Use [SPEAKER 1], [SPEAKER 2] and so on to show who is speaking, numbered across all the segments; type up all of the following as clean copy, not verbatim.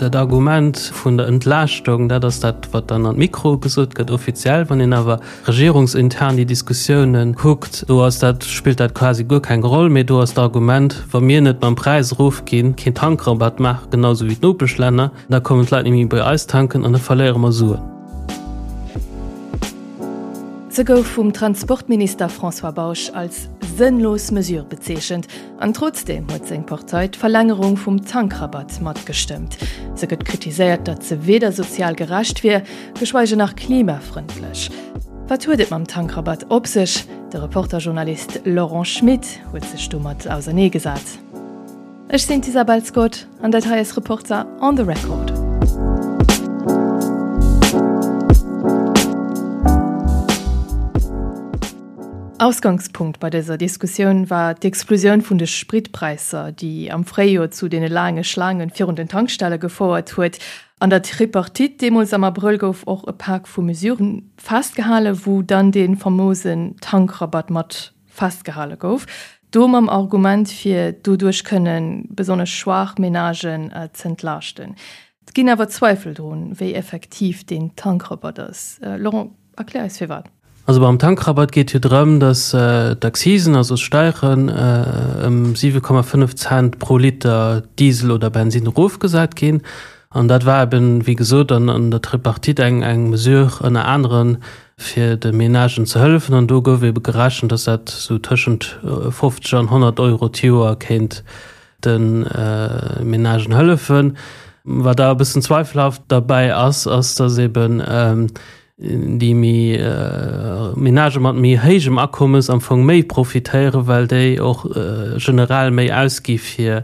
[SPEAKER 1] Dat Argument vun der Entlaaschtung, dat ass dat, wat dann an d'Mikroe gesot gëtt, offiziell. Wann een awer regierungsintern déi Diskussiounen kuckt, do ass dat, spillt dat quasi guer keng Roll méi. Do ass d'Argument, wa mir net mam Präis erofginn, keen Tankrabatt maachen, genau esou wéi d'Nopeschlänner, da kommen d'Leit net méi bei eis tanken an da verléiere mer Suen.
[SPEAKER 2] Se gouf vum Transportminister François Bausch als sënnlos Mesure bezeechent an trotzdeem huet seng Partei d'Verlängerung vum Tankrabatt matgestëmmt. Se gëtt kritiséiert, datt se weder sozial gerecht wier, geschweige nach klimafrëndlech. Wat huet et mam Tankrabatt op sech? De Reporter-Journalist Laurent Schmit huet sech domat auserneegesat. Ech sinn d'Isabel Scott an dat hei ass Reporter on the Record. Ausgangspunkt bei dëser Diskussioun war d'Explosioun vun de Spritpräisser, déi am Fréijoer zu deene laange Schlaange virun den Tankstelle gefouert huet. An der Tripartite deemools am Abrëll gouf och e Pak vu Mesurë festgehalen, wou dann dee famousen Tankrabatt mat festgehale gouf, do mam Argument fir doduerch kënne besonnesch schwaach Menagen z'entlaaschten. Et ginn awer Zweifel drun, wéi effektiv deen Tankrabatt ass. Laurent, erklär eis firwat.
[SPEAKER 1] Also beim Tankrabatt geet jo drëm, datt d'Accisen, also d'Steieren, ëm 7,5 Cent pro Liter Diesel oder Bensinn erofgesat ginn. An dat war eben, wéi gesot, an der Tripartite eng Mesure ënner aneren, fir de Menagen ze hëllefen. An do gouf ebe gerechent, datt dat esou tëschent 50 an 100 Euro d'Joer kéint de Menagen hëllefen. Wat awer e bëssen zweifelhaft derbäi ass, ass, datt eben déi méi Menagë mat méi héijem Akommes am Fong méi profitéieren, well déi och generell méi ausgi fir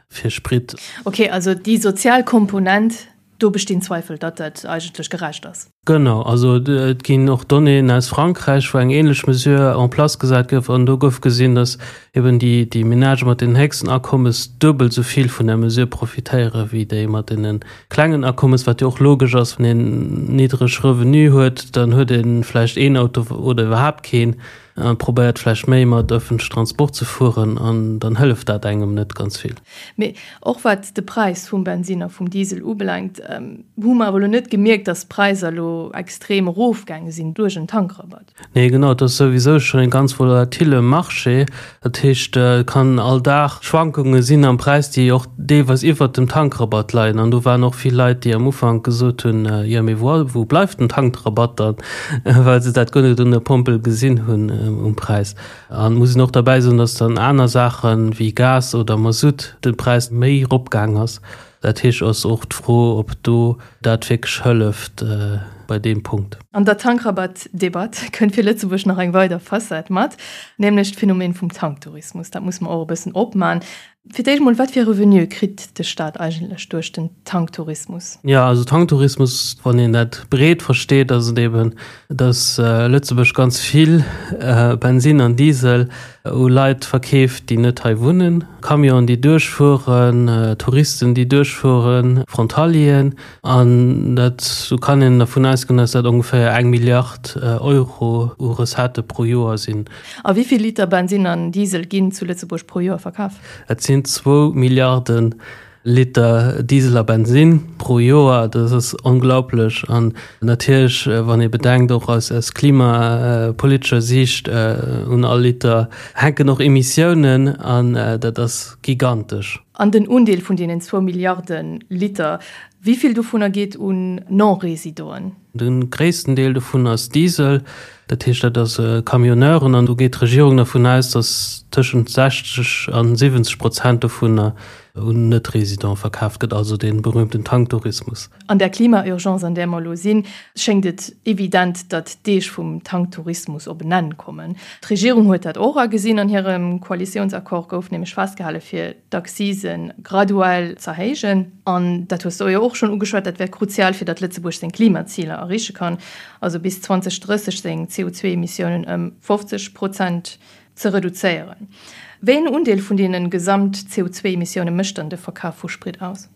[SPEAKER 1] Sprit.
[SPEAKER 2] Ok, also déi sozial Komponent Do bestinn Zweifel, datt dat eigentlech gerecht ass.
[SPEAKER 1] Genau, also et ginn och Donnéeën aus Frankräich, wou eng ähnlech Mesure en place gesat gouf an do gouf gesinn, datt eben déi déi Menagë mat den héchsten Akommes duebel esou vill vun der Mesure profitéiere wéi déi mat deene klengen Akommes, wat jo och logesch ass, wann een niddreg Revenue huet, dann huet ee vläicht een Auto oder iwwerhaapt keen. A probéiert vläicht méi mat ëffentlechen Transport ze fueren an dann hëlleft dat engem net ganz vill.
[SPEAKER 2] Mee och wat de Präis vum Bensinn a vum Diesel ubelaangt, hu mer awer elo net gemierkt, datt d'Präisser elo extrem erofgaange sinn duerch en Tankrabatt.
[SPEAKER 1] Nee, genau, et ass souwisou schonn e ganz volatile Marché. Dat heescht, et kann all Dag Schwankunge sinn am Präis, déi och deelweis iwwert dem Tankrabatt leien. An do waren och vill Leit, déi am Ufank gesot hunn, jo mee wou wou bleift den Tankrabatt dann, well se dat guer net un der Pompel gesinn hunn um Präis. An et muss een och derbäi soen, datt dann aner Saache wéi Gas oder Masutt de Präis méi eropgaang ass. Dat heescht, ass och d'Fro, ob do dat wierklech hëlleft bei deem Punkt.
[SPEAKER 2] An der Tankrabatt-Debatt kënnt fir Lëtzebuerg nach eng weider Facette mat, nämlech d'Phänomen vum Tanktourismus. Dat muss mer och e bëssen opman. Fir d'éischt mol, wat fir Revenue kritt de Staat eigentlech duerch den Tanktourismus?
[SPEAKER 1] Jo, also Tanktourismus, wann een dat breet versteet, ass et eben, datt Lëtzebuerg ganz vill Bensinn an Diesel u Leit verkeeft, déi net hei wunnen. Camionen, déi duerchfueren, Touristen, déi duerchfueren, Frontalieren. An dat, do kann een dervun ausgoen, datt dat ongeféier eng Milliard Euro u Recettë pro Joer sinn.
[SPEAKER 2] A wéi vill Liter Bensinn an Diesel ginn zu Lëtzebuerg pro Joer verkaf?
[SPEAKER 1] Et sinn zwou Milliarden Liter Diesel a Bensinn pro Joer, dat ass onglaublech. An natierlech, wann ee bedenkt, och aus aus klimapolitescher Siicht, un all Liter hänken och Emissiounen an dat ass gigantesch.
[SPEAKER 2] An den Undeel vun deenen zwou Milliarde Liter, wéi vill dovunner geet un Non-Résidenten?
[SPEAKER 1] De gréissten Deel dovun ass Diesel, dat heescht dat ass Camionneuren an do geet d'Regierung dervun aus, datt tëschent 60 a 70 Prozent dovunner un Net-Résidente verkaaft gëtt, also dee berühmten Tanktourismus.
[SPEAKER 2] An der Klima-Urgence, an där mer elo sinn, schéngt et evident, datt d'Deeg vum Tanktourismus op en Enn kommen. D'Regierung huet dat och agesinn. An hirem Koalitiounsaccord gouf nämlech festgehale fir d'Accisen graduell z'erhéijen. An dat hues de jo och schonn ugeschwat, dat wär kruzial, fir datt Lëtzebuerg seng Klimaziler erreeche kann, also bis 2030 seng CO2-Emissiounen ëm 50 Prozent ze reduzéieren. Wéi en Undeel vun deene gesamt CO2-Emissioune mécht dann de Verkaf vu Sprit aus?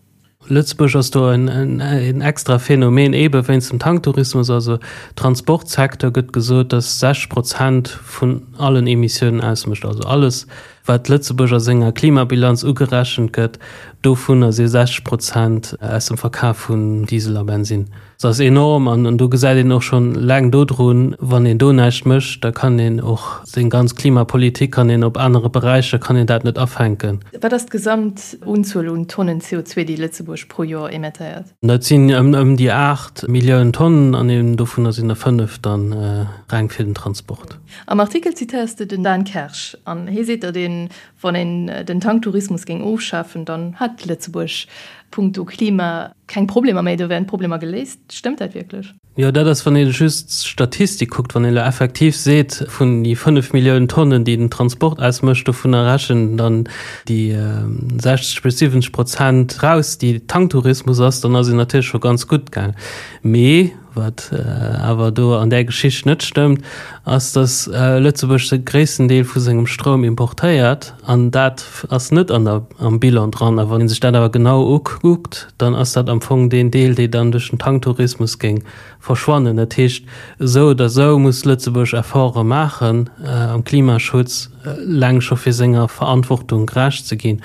[SPEAKER 1] Lëtzebuerg ass do en extra Phänomen, eebe wéinst dem Tanktourismus. Also Transportsecteur gëtt gesot, datt 60 Prozent vun allen Emissiounen ausmécht. Also alles, wat Lëtzebuerg a senger Klimabilanz ugerechent gëtt. Dovunner si 60 Prozent aus dem Verkaf vun Diesel a Bensinn. Dat ass enorm an do gesäit een och schonn eleng dodrun, wann een do näischt mécht, da kann een och seng ganz Klimapolitik kann een op anere Beräicher kann een dat net afänken.
[SPEAKER 2] Wat ass d'gesamt Unzuel un Tonnen CO2, déi Lëtzebuerg pro Joer emettéiert?
[SPEAKER 1] Dat sinn ëm déi 8 Milliounen Tonnen an eben dovunner sinn der 5 dann reng fir den Transport.
[SPEAKER 2] Am Artikel zitéiers de den Dan Kersch an hie seet, datt een, wann een den Tanktourismus géing ofschafen, dann hätt Lëtzebuerg punkto Klima keng Problemer méi, do wären d'Problemer geléist. Stëmmt dat wierklech?
[SPEAKER 1] Jo, dat ass, wann ee just d'Statistik kuckt. Wann ee elo effektiv seet, vun déi 5 Milliounen Tonnen, déi den Transport ausmécht, dovunner rechnen dann déi 60 bis 70 Prozent raus, déi Tanktourismus ass, dann ass een natierlech scho ganz gutt gaang. Mee wat awer do an där Geschicht net stëmmt, ass, datt Lëtzebuerg de gréissten Deel vu sengem Stroum importéiert an dat ass net an der, am Bilan dran. A wann ee sech dat awer genau ukuckt, dann ass dat am Fong deen Deel, dee dann duerch den Tanktourismus géing verschwannen. Dat heescht, esou oder esou muss Lëtzebuerg Efforte maachen am Klimaschutz, eleng scho fir senger Verantwortung gerecht ze ginn.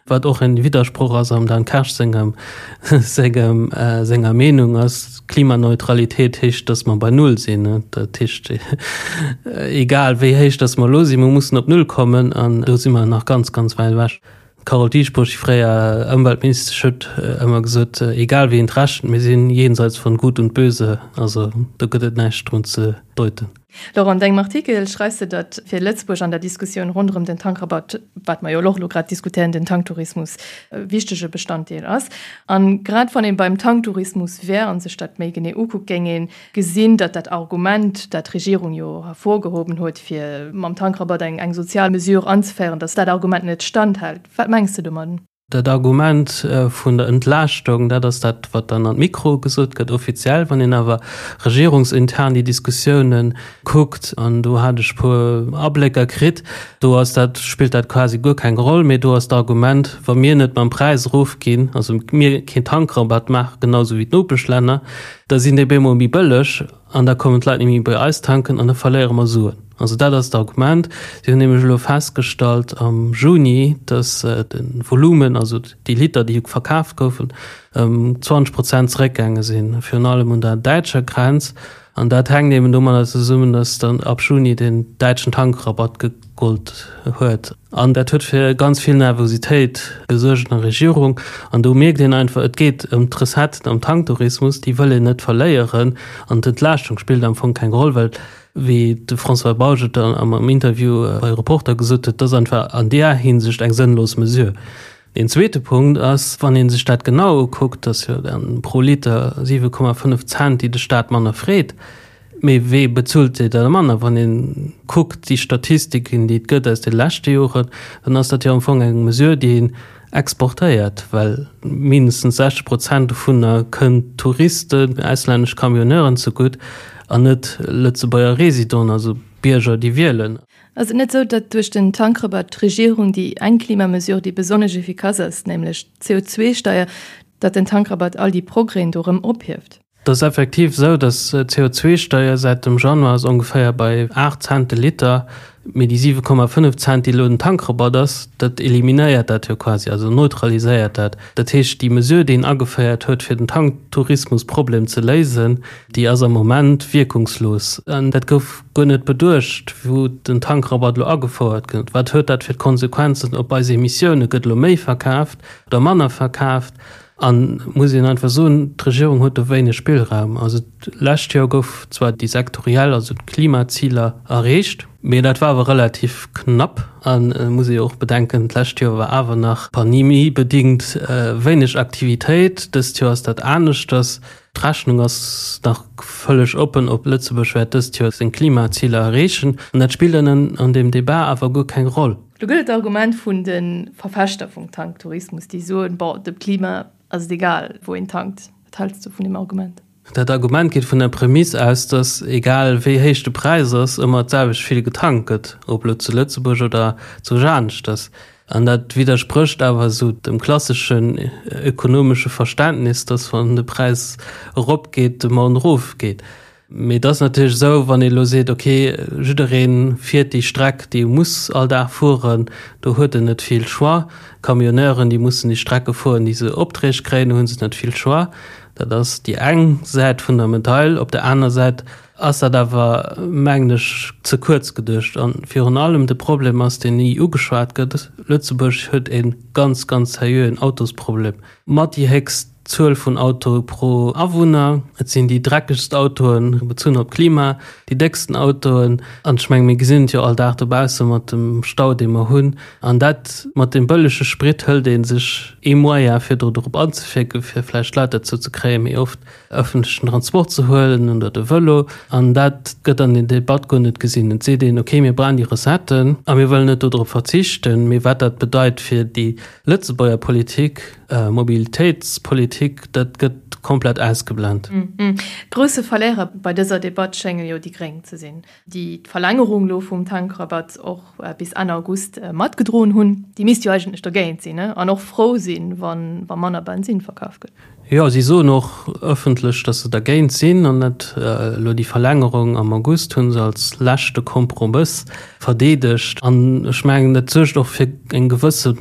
[SPEAKER 1] Wat och en Widdersproch ass am Dan Kersch sengem, sengem, senger Meenung ass, Klimaneutralitéit heescht, datt mer bei Null sinn. Dat heescht, egal wéi héich datt mer elo sinn, mer mussen op Null kommen an do si mer nach ganz, ganz wäit ewech. D'Carole Dieschbourg, déi fréier Ëmweltministesch, huet ëmmer gesot, egal wéi een et rechent, mir sinn jenseits von Gut und Böse. Also do gëtt et näischt drun ze deuten.
[SPEAKER 2] Laurent, an dengem Artikel schreifs de, datt fir Lëtzebuerg an der Diskussioun ronderëm den Tankrabatt, wat mer jo och elo grad diskutéieren, den Tanktourismus e wichtege Bestanddeel ass. A grad wann ee beim Tanktourismus wär a sech dat méi genee ukuckt, géing ee gesinn, datt dat Argument, dat d'Regierung jo hervorgehoben huet, fir mam Tankrabatt eng sozial Mesure anzeféieren, datt dat Argument net standhält. Wat mengs de domadden?
[SPEAKER 1] Dat Argument vun der Entlaaschtung, dat ass dat, wat dann an d'Mikro gesot gëtt, offiziell. Wann een awer regierungsintern déi Diskussiounen kuckt, an do hat ech e puer Ablécker kritt, do ass dat, spillt dat quasi guer keng Roll méi. Do ass d'Argument, wa mir net mam Präis erofginn, also mir keen Tankrabatt maachen, genau esou wéi d'Nopeschlänner, da sinn déi bemol méi bëlleg. An da kommen d'Leit net méi bei eis tanken an da verléiere mer Suen. Also dat ass d'Argument. Si hunn nämlech elo festgestallt am Juni, datt de Volumen, also déi Liter, déi verkaaft goufen, ëm 20 Prozent zeréckgaange sinn, virun allem un der däitscher Grenz. An dat hänkt eben domadder zesummen, datt dann ab Juni den däitschen Tankrabatt gegollt huet. An dat huet fir ganz vill Nervositéit gesuergt an der Regierung. An do mierkt een einfach, et geet ëm d'Recetten am Tanktourismus, déi wëll een net verléieren. An d'Entlaaschtung spillt am Fong keng Roll, well, wéi de François Bausch et dann am Interview bei Reporter gesot huet, dat ass einfach an där Hinsicht eng sënnlos Mesure. Deen zweete Punkt ass, wann ee sech dat genau ukuckt, dass jo dann pro Liter 7,5 Cent, déi de Staat manner freet, Mee wee bezuelt déi da manner? Wann ee kuckt déi Statistiken, déi et gëtt aus de leschte Joren, dann ass dat jo am Fong eng Mesure, déi een exportéiert, well mindestens 60 Prozent dovunner kënnt Touristen, auslännesch Camionneuren zegutt an net Lëtzebuerger Résidenten, also Bierger, déi wielen.
[SPEAKER 2] Ass et net esou, datt duerch den Tankrabatt d'Regierung déi eng Klimamesure, déi besonnesch efficace ass, nämlech d'CO2-Steier, datt den Tankrabatt all déi Progrèsen do erëm ophieft?
[SPEAKER 1] Et ass effektiv esou, datt d'CO2-Steier säit dem Januar ass ongeféier bei 8 Cent de Liter, mee déi 7,5 Cent, déi elo den Tankrabatt ass, dat eliminéiert dat jo quasi, also neutraliséiert dat. Dat heescht, déi Mesure, déi een ageféiert huet, fir den Tanktourismusproblem ze léisen, déi ass am Moment wierkungslos. An dat gouf guer net beduecht, wou den Tankrabatt elo agefouert gëtt. Wat huet dat fir d'Konsequenzen op eis Emissiounen? Gëtt elo méi verkaaft oder manner verkaaft? An muss een einfach soen, d'Regierung huet do wéineg Spillraum. Also d'lescht Joer gouf zwar déi sektoriell, also d'Klimaziler erreecht, mee dat war awer relativ knapp. An et muss ee jo och bedenken, d'lescht Joer war awer nach pandemiebedingt wéineg Aktivitéit. Dëst Joer ass dat aneschters. D'Rechnung ass nach vëlleg oppen, ob Lëtzebuerg wäert dëst Joer seng Klimaziler erreechen. An dat spillt an deem Debat awer guer keng Roll.
[SPEAKER 2] Do gëtt et d'Argument vun de Verfechter vum Tanktourismus, déi soen, bon, dem Klima ass et egal, wou een tankt. Wat häls du vun deem Argument?
[SPEAKER 1] Dat Argument geet vun der Prämiss aus, datt egal wéi héich de Präis ass, ëmmer d'selwecht vill getankt gëtt, ob elo zu Lëtzebuerg oder zu aneschters. An dat widdersprécht awer esou dem klasseschen ökonomesche Verständnis, datt wann de Präis eropgeet, d'Demande erofgeet. Mee et ass natierlech esou, wann ee elo seet, okay, jidderee fiert déi Streck, déi e muss all Dag fueren, do huet en net vill Choix. Camionneuren, déi mussen déi Strecke fueren, déi se Opträg kréien, do hu se net vill Choix. Dat ass déi eng Säit vun der Medail. Op der aner Säit ass dat awer, mengen ech, ze kuerz geduecht. A virun allem de Problem ass, deen ni ugeschwat gëtt, Lëtzebuerg huet e ganz, ganz seriöen Autosproblem. Mat déi héchst Zuel vun Autoe pro Awunner. Et sinn déi dreckegst Autoen, bezunn op d'Klima, déi décksten Autoen. An ech menge mir gesinn et jo all Dag dobausse mat dem Stau, dee mer hunn. An dat mat deem bëllege Sprit hëlt ee sech ee Moyen, fir do drop anzewierken, fir vläicht d'Leit derzou ze kréien, méi oft ëffentlechen Transport ze huelen oder de Vëlo. An dat gëtt an der Debatt guer net gesinn. Et seet een, okay, mir brauchen déi Recetten a mir wëllen net dodrop verzichten. Mee wat dat bedeit fir déi Lëtzebuerger Politik, Mobilitéitspolitik, dat gëtt komplett ausgeblent.
[SPEAKER 2] Grousse Verléierer bei dëser Debatt schénge jo déi Gréng ze sinn, déi d'Verlängerung elo vum Tankrabatt och bis Enn August matgedroen hunn. Déi misst jo eigentlech dergéint sinn an och frou sinn, wa manner Bensinn verkaf gëtt.
[SPEAKER 1] Jo, si soen och ëffentlech, datt se dergéint sinn an dat elo déi Verlängerung am August hu se als leschte Kompromëss verdeedegt. An ech mengen, dat suergt och fir eng gewësse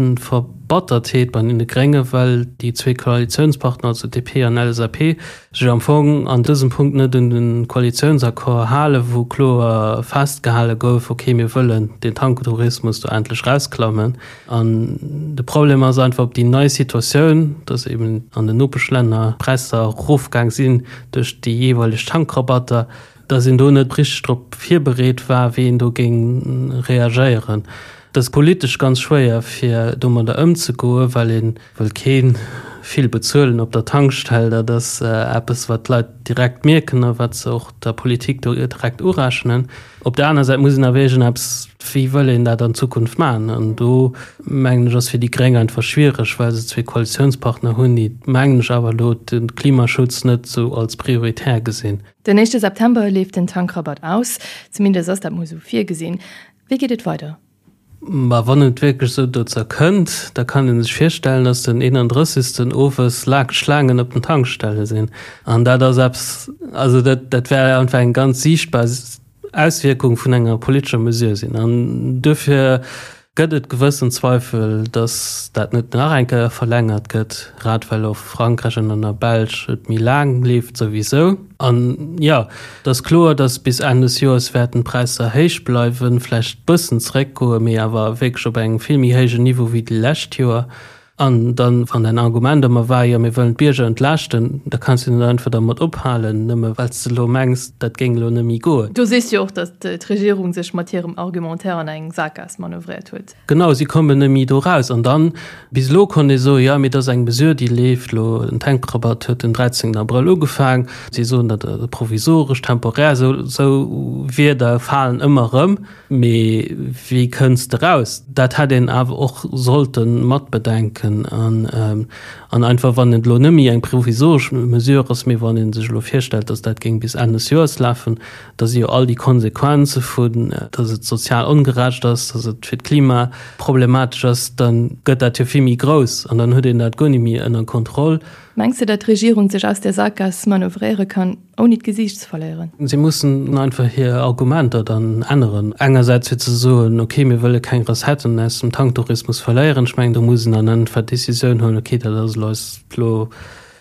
[SPEAKER 1] Verbattertheet bei deene Gréngen, well déi zwee Koalitiounspartner, also DP an LSAP, sech am Fong an dësem Punkt net un de Koalitiounsaccord halen, wou kloer festgehale gouf, okay, mir wëllen den Tanktourismus do endlech rausklammen. An de Problem ass einfach op déi nei Situatioun, dass eben an den Nopeschlänner d'Präisser erofgaang sinn duerch déi jeeweileg Tankrabatter, dass een do net richteg drop virbereet war, wéi een do géing reagéieren. Et ass politesch ganz schwéier, fir domadder ëmzegoen, well ee wëll kee vill bezuelen op der Tankstell. Dat ass eppes, wat d'Leit direkt mierken a wat se och der Politik do direkt urechnen. Op der aner Säit muss een awer iergendeppes, wéi wëll een dat an Zukunft maachen? An do, mengen ech, ass fir déi Gréng einfach schwiereg, well se zwee Koalitiounspartner hunn, déi, mengen ech, awer elo de Klimaschutz net esou als prioritär gesinn.
[SPEAKER 2] Den éischte September leeft den Tankrabatt aus, zumindest ass dat mol esou virgesinn. Wéi geet et weider?
[SPEAKER 1] Mä wann et wierklech esou dozou kënnt, da kann ee sech virstellen, dass den 31. owes laang Schlaangen op den Tankstelle sinn. An dat ass eppes, also dat, dat wär einfach eng ganz siichtbar Auswierkung vun enger politescher Mesure sinn. An duerfir gëtt et gewëssen Zweifel, dass dat net nach eng Kéier verlängert gëtt, grad well och Frankräich an an der Belsch et méi laang leeft souwisou. An jo, et ass kloer, dass bis Enn des Joers wäerten d'Präisser héich bleiwen, vläicht bëssen zeréckgoen, mee awer wierklech op engem vill méi héijen Niveau wéi déi lescht Joer. An dann, wann däin Argument ëmmer war, jo mir wëllen d'Bierger entlaaschten, da kanns du net einfach dermat ophalen, nëmme well s de elo mengs, dat géing elo net méi goen.
[SPEAKER 2] Do sees du jo och, datt d'Regierung sech mat hirem Argumentaire an eng Sakgaass manövréiert huet.
[SPEAKER 1] Genau, si kommen net méi do raus. An dann, bis elo konnt ee soen, jo, mee dat ass eng Mesure, déi leeft elo, den Tankrabatt huet den 13 Abrëll ugefaang. Si soen dat provisoresch, temporär, esou, esou Wierder falen ëmmer erëm. Mee wéi kënns de raus? Dat hätt een awer och sollte matbedenken. An, an einfach, wann et elo net méi eng provisoresch Mesure ass, mee wann ee sech elo virstellt, datt dat géing bis Enn des Joers lafen, da si jo all déi Konsequenze vun, datt et sozial ongerecht ass, datt et fir d'Klima problematesch ass, da gëtt dat jo vill méi grouss an dann huet een dat guer net méi ënner Kontroll.
[SPEAKER 2] Mengs de, datt d'Regierung sech aus där Sakgaass manövréiere kann, ouni d'Gesiicht ze verléieren?
[SPEAKER 1] Si mussen einfach hir Argumenter dann änneren. Engersäits fir ze soen, okay, mir wëlle keng Recetten aus dem Tanktourismus verléieren. Ech mengen, do muss een dann einfach d'Decisioun huelen, okay, dat ass elo eis elo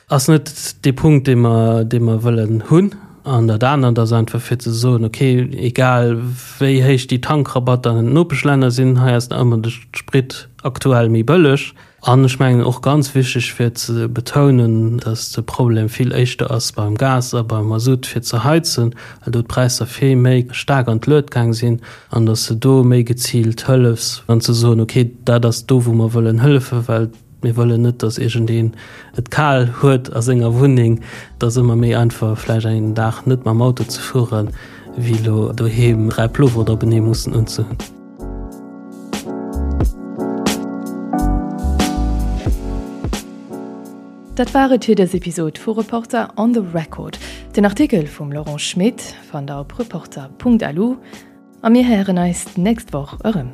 [SPEAKER 1] ass net dee Punkt, dee mer, dee mer wëllen hunn. An dat anert ass einfach fir ze soen, okay, egal wéi héich déi Tankrabatter an den Nopeschlänner sinn, hei ass nach ëmmer de Sprit aktuell méi bëlleg. An ech mengen och ganz wichteg fir ze betounen, dass de Problem vill éischter ass beim Gas a beim Masutt fir ze heizen, well do d'Präisser vill méi staark an d'Luet gaang sinn, an dass de do méi geziilt hëllefs an ze soen, okay, dat ass do wou mer wëllen hëllefen, well mir wëllen net, dass iergendeen et kal huet a senger Wunneng. Et ass ëmmer méi einfach vläicht een Dag net mam Auto ze fueren, wéi elo doheem 3 Ploveren openee mussen unzehunn.
[SPEAKER 2] Dat war et fir dës Episod vu Reporter on the Record. Den Artikel vum Laurent Schmit fannt der op reporter.lu a mir héieren eis d'nächst Woch erëm.